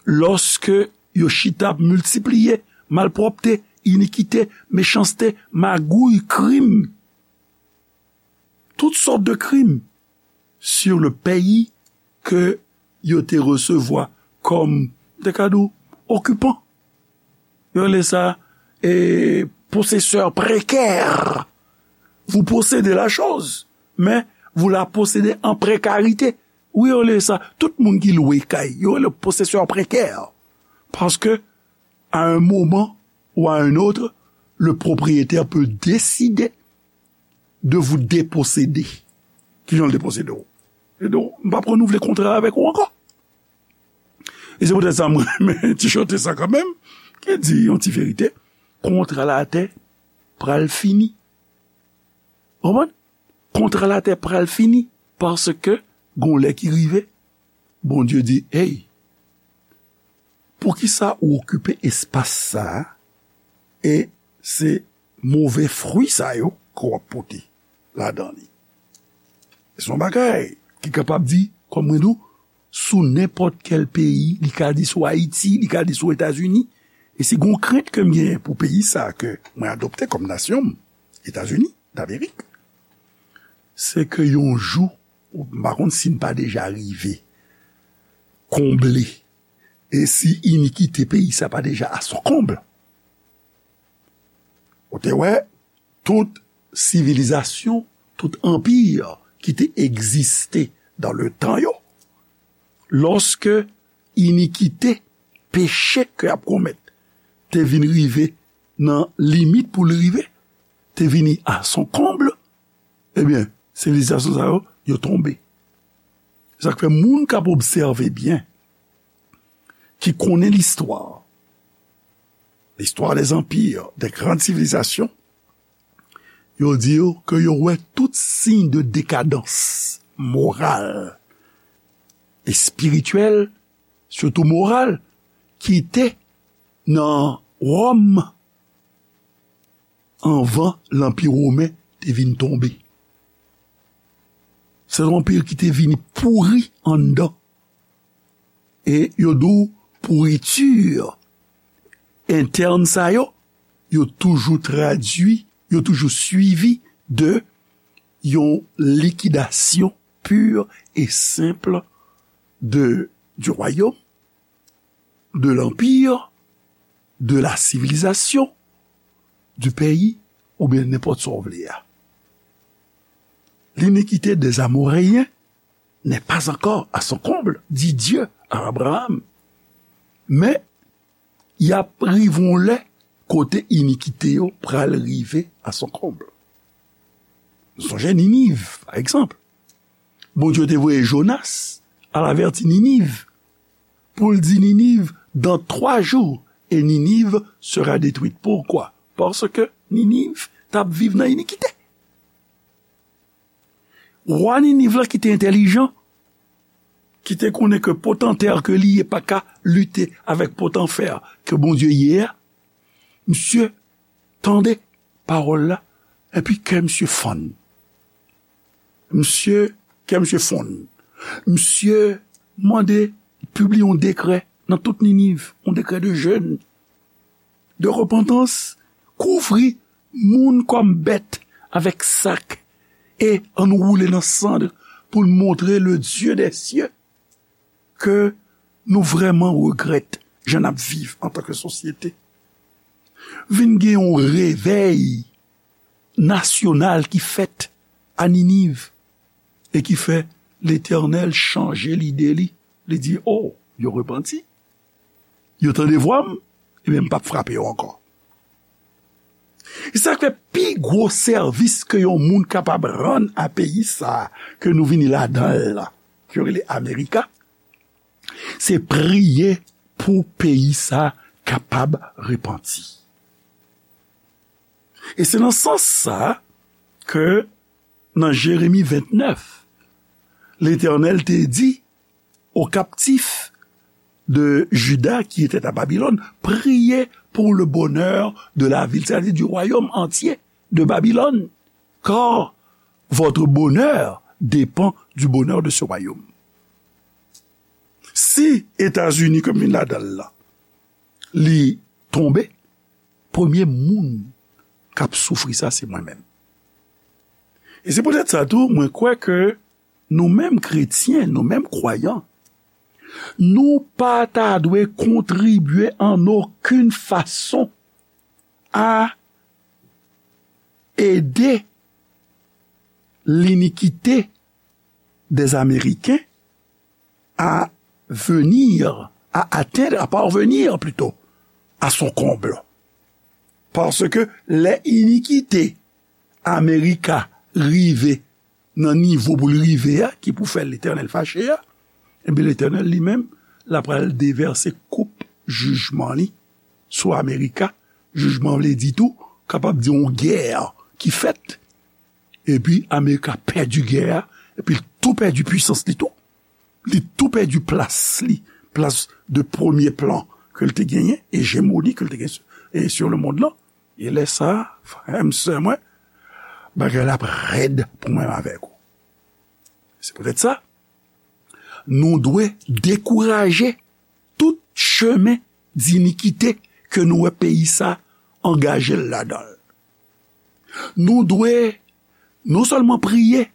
lòske yo chita ap miltipliye malpwòpte, inikite, mechanste, magouy, krim, tout sòt de krim sur le pays ke yo te resevwa kòm, m te ka di w, okipan. Yo rele sa, e, possesseur précaire. Vous possédez la chose, mais vous la possédez en précarité. Wi, yo rele sa, tout moun ki lwe kay, yo rele possesseur précaire. Parce que, à un moment ou à un autre, le propriétaire peut décider de vous déposséder. Kijan l deposede w? E donk, m p ap renouvle kontra avèk ou ankò. E se poutèt sa m renmen ti chante sa kanmenm, ki di yon ti verite, kontra latè pral fini. Konprann? Kontra latè pral fini, paske gon lè ki rive, Bondye di, "Hey, poukisa ou okipe espas sa a?" E se move fwi sa yo ke w ap pote ladan li. Se yon bagay ki kapab di, kòm mwen di w, sou nenpòt kèl peyi, li ka di sou Ayiti, li ka di sou Etazini. E si gon krent ke m genyen pou peyi sa a ke mwen adopte kòm nasyon m, Etazini Damerik, se ke yon jou, m pa konn si n pa deja rive konble, e si inikite peyi sa pa deja à son comble. Ou te wè, tout sivilizasyon, tout anpi ki te egziste dans le temps yo, lòske inikite, peche ke y ap komèt, te vin rive nan limit pou l rive, te vini à son comble, ebyen, sivilizasyon sa yo, yo tonbe. Sa k fè moun k ap obsève byen, ki konnen listwa, l'histoire des empires, des grandes civilisations, Yo di w ke yo wè tout siy de dekadans moral, espirityèl, sitou moral, ki te nan Wòm anvan Lanpi Women te vin tonbe. Se yon anpi ki te vini pouri anndan. E yo di w pouriti entèn sa yo, yo toujou tradui, yo toujou swivi de yon likidasyon pur et simple de, du royaume, de l'empire, de la civilisation, du pays, oubyen nenpòt sa w vle a. L'iniquité des Amoréens n'est pas encore à son comble, dit Dieu à Abraham. Men, y ap rive yon lè kote inikite yo pral rive à son comble. Nou sonje Niniv, pa egzanp. Bondye te voye Jonas al avèti Niniv, pou l di Niniv, dans trois jours, et Ninive sera détruite. Poukwa? Paske Niniv t ap viv nan inikite. Wa Niniv la ki te entèlijan, ki te konnen ke potantè ke li ye pa ka lite avèk potanfè ke Bondye ye a, misye tande pawòl la, epi kè misye fann. Misye, kè misye fonn. Misye mande pibliye yon dekrè nan tout Niniv, yon dekrè de jèn, de repantans, kouvri moun kòm bèt avèk sak, e ann woule nan sann pou l montre le Dieu des cieux ke nou vrèman regrèt jan n ap viv antanke sosyete. Vin gen yon revèy nasyonal ki fèt a Niniv e ki fè Letènèl chanje lide li. Li di, "O, yo repanti, yo tande vwa m, ebyen, m p ap frape yo ankò." E sa k fè pi gwo sèvis ke yon moun kapab rann a peyi sa a ke nou vini ladan l la, ke yo rele Amerika, se priye pou peyi sa a kapab repanti. E se nan sans sa a ke nan Jeremi vennèf, Letènèl te di aux captifs de Juda qui étaient à Babylone, priez pour le bonheur de la ville, c'est-à-dire du royaume entier de Babylone, car votre bonheur dépend du bonheur de ce royaume. Si Etazini, ke m vin ladan l la, li tonbe, premye moun k ap soufri sa, se mwen menm. E se poutèt sa tou, mwen kwè ke nou menm kretyen, nou menm kwayan, nou pa ta dwe kontribye an okenn fason a ede linikite dè Ameriken a venir, à atteindre, à parvenir plutôt, à son comble. Paske lè inikite Amerika rive nan nivo pou l rive a, ki pou fè Letènèl fache a, ebyen, Letènèl li menm, l ap pral devèse koup jijman li sou Amerika. Jijman vle di tou, kapab di yon gè ki fèt, epi Amerika pèdi gè a, epi l tou pèdi pwisans li tou. Li tou pèdi plas li, plas de premye plan ke l te genyen, ejemoni ke l te genyen e sur le monde lan. E lè sa a, frè m, sè mwen, bagay la ap rèd pou mwen avèk ou. Se poutèt sa, nou dwe dekouraje tout chemen dinikite ke nou wè peyi sa angaje l ladan l. Nou dwe non sèlman priye,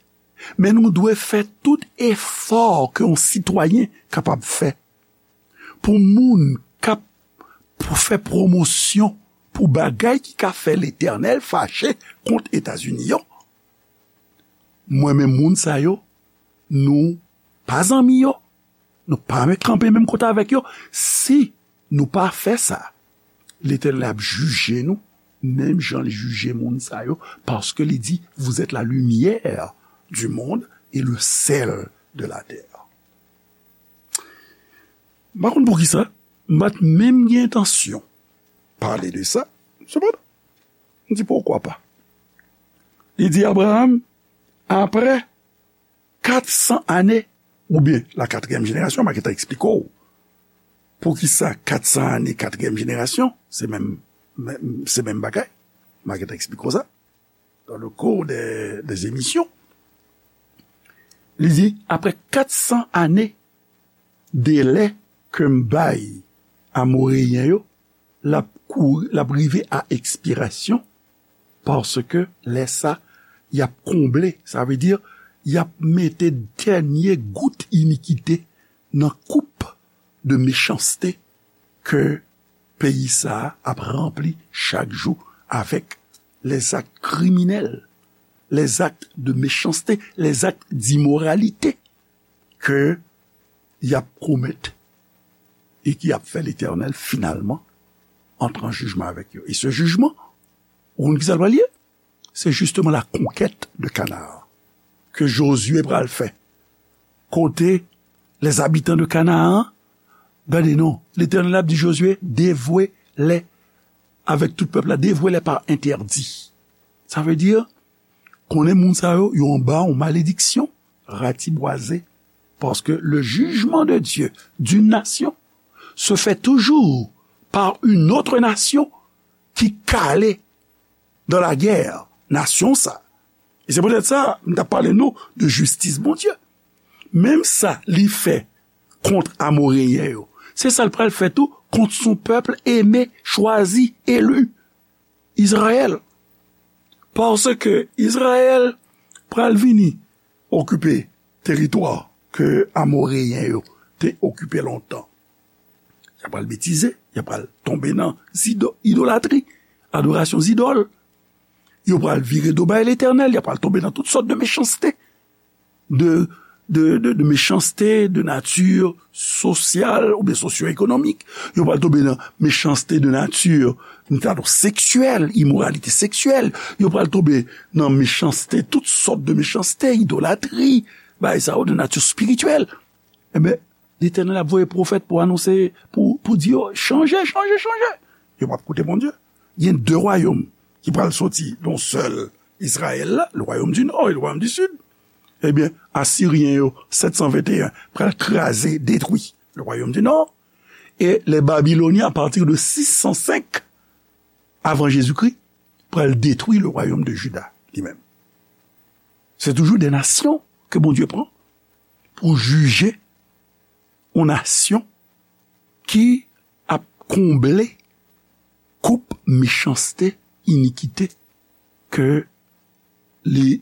men nou dwe fè tout efò ke yon sitwayen kapab fè pou moun k ap pou fè pwomosyon pou bagay ki ka fè Letènèl fache kont Etazini yo. Mwen menm, moun sa yo, nou pa zanmi yo, nou pa kanpe menm kote avèk yo. Si nou pa fè sa, Letènèl ap jije nou, menm jan li jije moun sa yo, paske li di, vous êtes la lumière du monde et le sel de la terre. M pa konn poukisa, m pa t menm gen entansyon pale de sa. Sepandan, m di, poukwa pa? Li di Abraram, apre kat san ane, oubyen la katriyèm jenerasyon, m a gentan eksplike w poukisa kat san ane, katriyèm jenerasyon, se menm, menm, se menm bagay. M a gentan eksplike w sa dans le cours des, des émissions. Li di, apre kat san ane, delè ke m bay Amoreyen yo, l ap kouri, l ap rive a ekspirasyon, paske lè sa, y ap konble, sa vle di, y ap mete dènye gout inikite nan koup de mechanste ke peyi sa a ap ranpli chak jou avèk les actes criminels, les actes de méchanceté, les actes d'immoralité ke y ap komèt e ki ap fè Letènèl finalman antre an jijman avèk yo. E se jijman, ou konn ki sa l pral ye? Se jisteman la conquête de Canaan ke Jozye pral fè. Kote les habitants de Canaan, gade non, Letènèl ap di Jozye, devwe lè avèk tout pèp la, devwe lè pa entèdi. Sa vle di, konnen moun sa yo, yo anba yon malediksyon, ratibwaze, paske le jugement de Dieu d'une nation se fait toujours par une autre nation ki kale dans la guerre, nasyon sa. E se poutèt sa, m t ap pale nou de jistis Bondye. Menm sa li fè kont Amoreyen yo, se sa l pral fè tou kont son peuple aimé, choisi, élu, Izrayèl. Paske Izrayèl pral vini okipe teritwa ke Amoreyen yo te okipe lontan. Y ap pral betize, y ap pral tonbe nan zido-, idolatri, adorasyon zidòl. Yo pral vire do bay Letènèl, y ap pral tonbe nan tout sòt de mechanste, de, de, de, de mechanste de nati sosyal oubyen sosyo-ekonomik. Yo pral tonbe nan mechanste de nati, nati seksyèl, imoralite seksyèl. Yo pral tonbe nan mechanste, tout sòt de mechanste, idolatri, bagay sa yo de nati espirityèl. Enben, Letènèl ap voye pwofèt pou anonse, pou, pou di yo, chanje, chanje, chanje. Yo p ap koute Bondye. Gen de wayòm ki pral soti nan sèl Izrayèl la, le royaume du nord et le royaume du sud. Ebyen, Asiryen yo, sèt san venteyen, pral kraze, detwi le royaume du nord. E les Babyloniens, à partir de sis san senk avan Jezikri, pral detwi le royaume de Juda li menm. Se toujou de nasyon ke Bondye pran pou jije yon nasyon ki ap konble koup mechanste, inikite ke li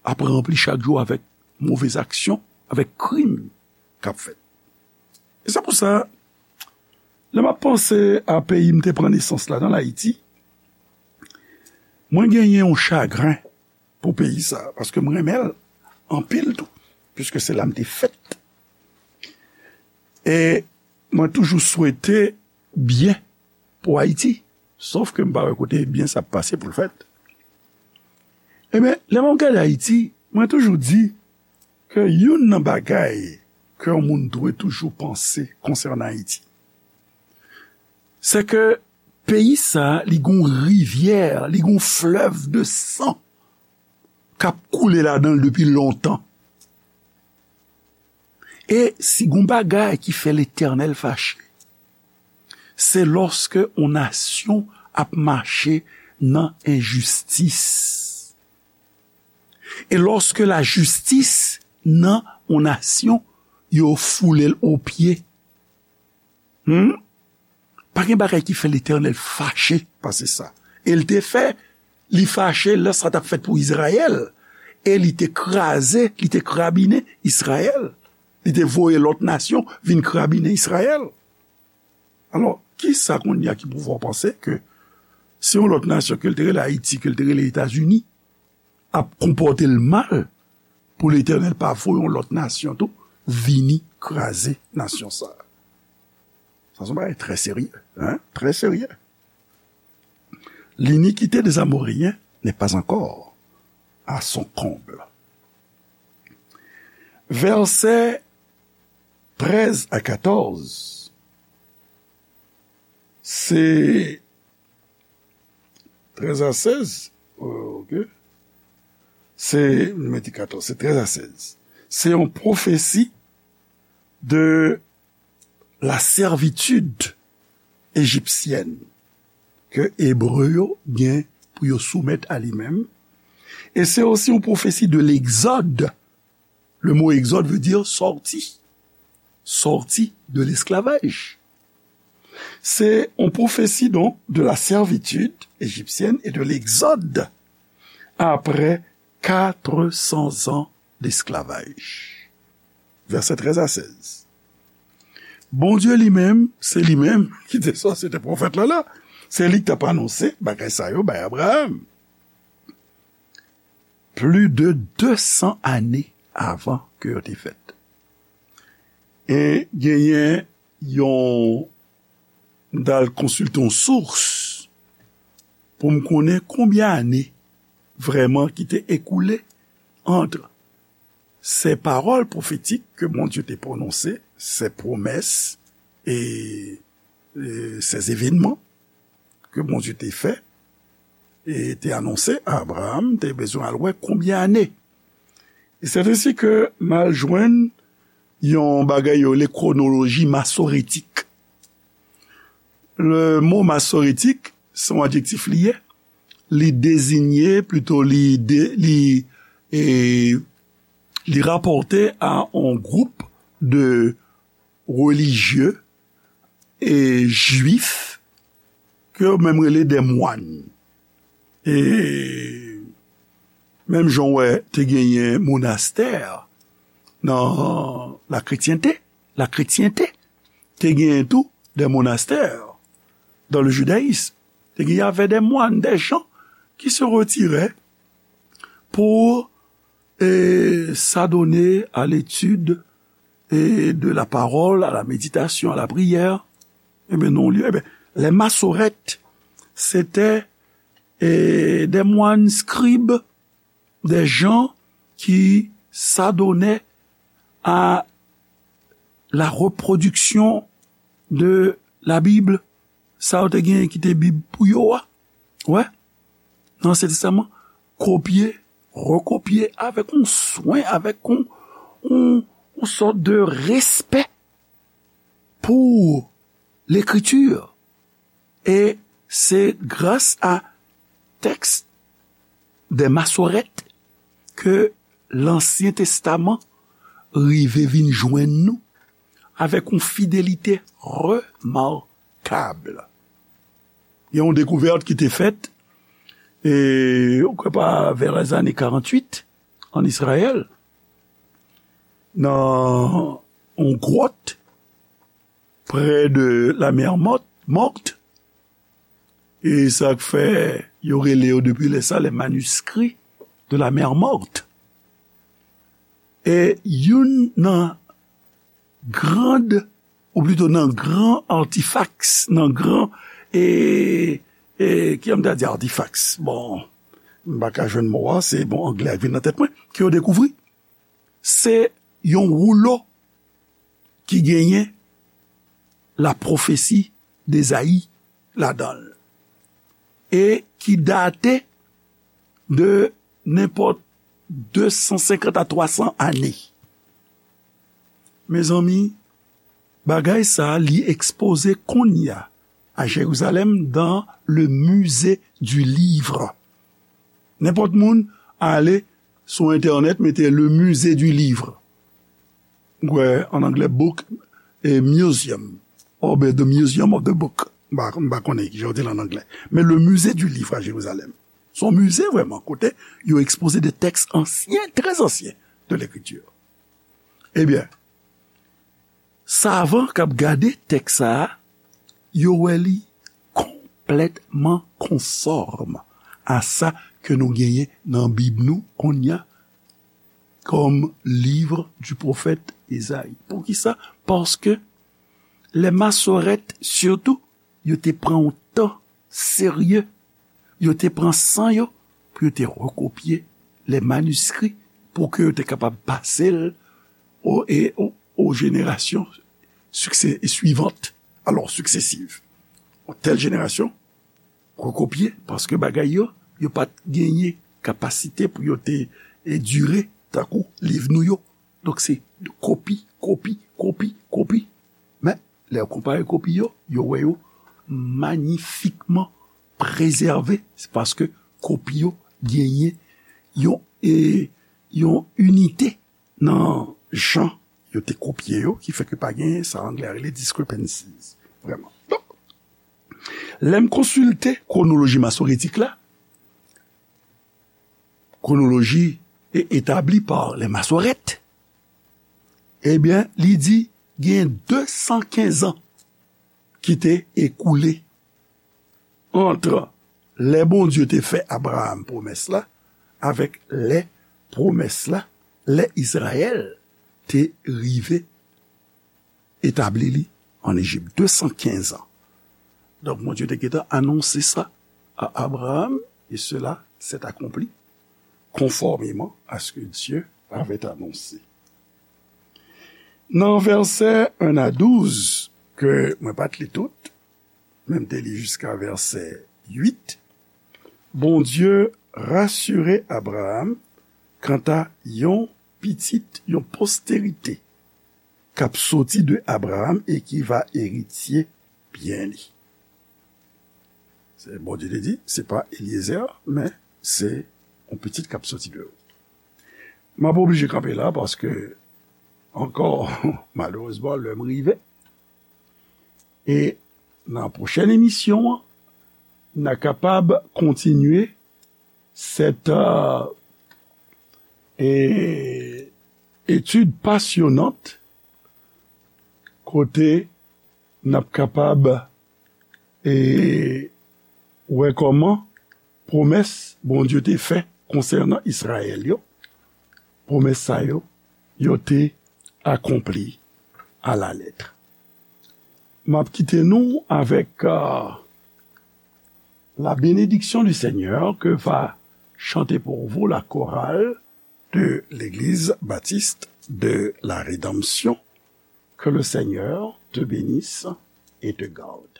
ap ranpli chak jou avèk move aksyon, avèk krim k ap fèt. E se pou sa, lè m ap panse a peyi m te pran nesans ladan l, Ayiti, mwen genyen yon chagren pou peyi sa, paske m renmen l anpil tou, piske se la m te fèt. E mwen toujou swete byen pou Ayiti, sòf ke m pa wè kote byen sa ap pase pou l fèt. Ebyen, lè m ap gade Ayiti, mwen toujou di ke youn nan bagay ke yon moun dwe toujou panse konsènan Ayiti, se ke peyi sa, li gon rivyè, li gon flèv de san k ap koule ladan l depi lontan. E si gon bagay ki fè Letènèl fache, se lòske yon nasyon ap mache nan enjistis. E lòske lajistis nan yon nasyon, yo foule l o pye. Hmm? Pa gen bagay ki fè Letènèl fache pase sa. E l te fè, li fache lè sa t ap fèt pou Izrayèl. E li te kraze, li te krabinen Izrayèl. Li te voye lòt nasyon vin krabinen Izrayèl. Alò, kisa kounye a ki pou fè w panse ke se yon lòt nasyon, ke l te rele Ayiti, ke l te rele Etazini, ap konpòte l mal pou Letènèl pa voye yon lòt nasyon tou vini kraze nasyon sa a? Sa se yon bagay trè serye, hein, trè serye. L'iniquité des Amoréens n'est pas encore à son comble. Vèsè trèz a katòz, se trèz a sèz, euh, ok. Se, m mete katòz, se trèz a sèz. Se yon pwofesi de la servitude égyptienne ke Ebre yo gen pou yo soumèt a li menm. E se osi yon pwofesi de l'exode. Le mot exode veut dire sorti. Sorti de l'esclavage. Se yon pwofesi, donk, de la servitude égyptienne et de l'exode après quatre cents ans d'esclavage. Vèsè trèz a sèz. Bondye li menm, se li menm ki te sòti, se te pwofèt la la. Se li ki t ap anonse bagay sa yo bay Abraham. Plis de de san ane avan ke yo te fèt. E genyen yon, m t al konsilte yon sous pou m konnen konbyen ane vrèman ki te ekoule ant se pawòl pwofetik ke Bondye te pwononse, se pwomès e, e se evènman ke Bondye te fè e te anonse a Abraham, te bezwen al wè konbyen ane. E se ensi ke m al jwenn yon bagay yo rele kwonoloji masoretik. Le mo masoretik, se yon adjektif li ye. Li deziye, plito li de, li, e, li rapòte a yon gwoup de relijye e jwif ke yo menm rele de mwann. E menm jan w wè te genyen monastè nan lakretyente, lakretyente, te genyen tou de monastè dans le judaïsme. Te genyen avè de mwann, de jan ki se retire pou e s'adonner à l'étude et de la parole, à la méditation, à la prière. Ebyen, non, li, ebyen, les massorètes, c'était e, des moines scribes, des gens qui s'adonnaient à la reproduction de la Bible. Sa yo te genyen ki te Bib pou yo a. Wè, nan Ansyen Testaman, kopye, rekopye avèk yon swen, avèk yon, yon, yon sòt de respè pou lekriti. E se gras a tèks de masòrèt ke Lansyen Testaman rive vin jwenn nou avèk yon fidelite remakab. Gen yon dekouvèt ki te fèt, e, ou kwè pa, vè lèzane karanntuit, an Izrayèl, nan yon gwòt prè de la mè mòt, mòt, e sa k fè yo rele yo depi lè sa les manuscrits de la mer Morte. E youn nan grand, ou plito nan gran artifaks, nan gran, e, e, ki jan m ta di artifaks? Bon, m pa ka jwenn mo a, se, bon, anglè a k vin nan tèt mwen, ke yo dekouvri. Se yon woulo ki genyen la pwofesi d'Ezayi ladan l, e ki date de nenpòt de san senkant a twa san ane. Mezanmi, bagay sa a, li ekspoze kounye a a Jerizalèm dans le musée du livre. Nenpòt moun ale sou entènèt, mete le musée du livre. Ou wè, an anglè, book e museum, oubyen the museum of the book. M pa, m pa konnen ki jan yo di l an anglè. Men le musée du livre à Jérusalem. Se yon mize vrèman, kote yo ekspoze de tèks ansyen, trè ansyen de lekriti. Ebyen, savan k ap gade tèks sa a, yo wè li konplètman konfòm a sa ke nou genyen nan Bib nou kounye a, comme livre du prophète Esaïe. Poukisa? Paske lè masòrèt, sitou, yo te pran yon tan serye, yo te pran san yo pou yo te rekopye lè maniskri, pou ke yo te kapab pase l o, e, o, o jenerasyon sukse-, suivant, alò, successive. Yon tèl jenerasyon rekopye, paske bagay yo, yo pa t genyen kapasite pou yo te e dire tankou liv nou yo. Donk, se kopi, kopi, kopi, kopi. Men, lè yo konpare kopi yo, yo wè yo magnifikman prezève. Se paske kopi yo genyen yon, e, yon inite nan jan yo te kopye yo, ki fè ke pa gen sa anglè a rele discrepancies, vrèman. Donk, lè m konsilte kwonoloji masoretik la, kwonoloji e etabli pa lè Masorèt, ebyen, li di gen de san kenz an ki te ekoule ant lè Bondye te fè Abraram pwomès la avèk lè pwomès la, lè Izrayèl te rive etabli li ann Ejip, de san kenz an. Donk, Bondye te gentan anonse sa a Abraram, et cela s'est accompli conformément à ce que Dieu avait annoncé. Nan vèsè en a douz, ke mwen pa t li tout, men m te li jiska vèsè uit, Bondye rasire Abraram kanta yon pitit, yon posterite k ap soti de Abraram e ki va eritye byen li. Se, Bondye te di, se pa Eliezer, men se yon pitit k ap soti de ou. M ap oblije kanpe la paske, ankò, malerezman, lè m rive. E nan pwochèn emisyon an, n a kapab kontinye sèt, euh, e, etid pasyonant kote n ap kapab, e, wè kòman pwomès Bondye te fè konsènan Izrayèl yo, pwomès sa yo, yo te akonpli alalèt. M ap kite nou avèk, euh, la bénédiction du Seigneur que va chanter pour vous la chorale de l'Église baptiste de la Rédemption. Que le Seigneur te bénisse et te garde.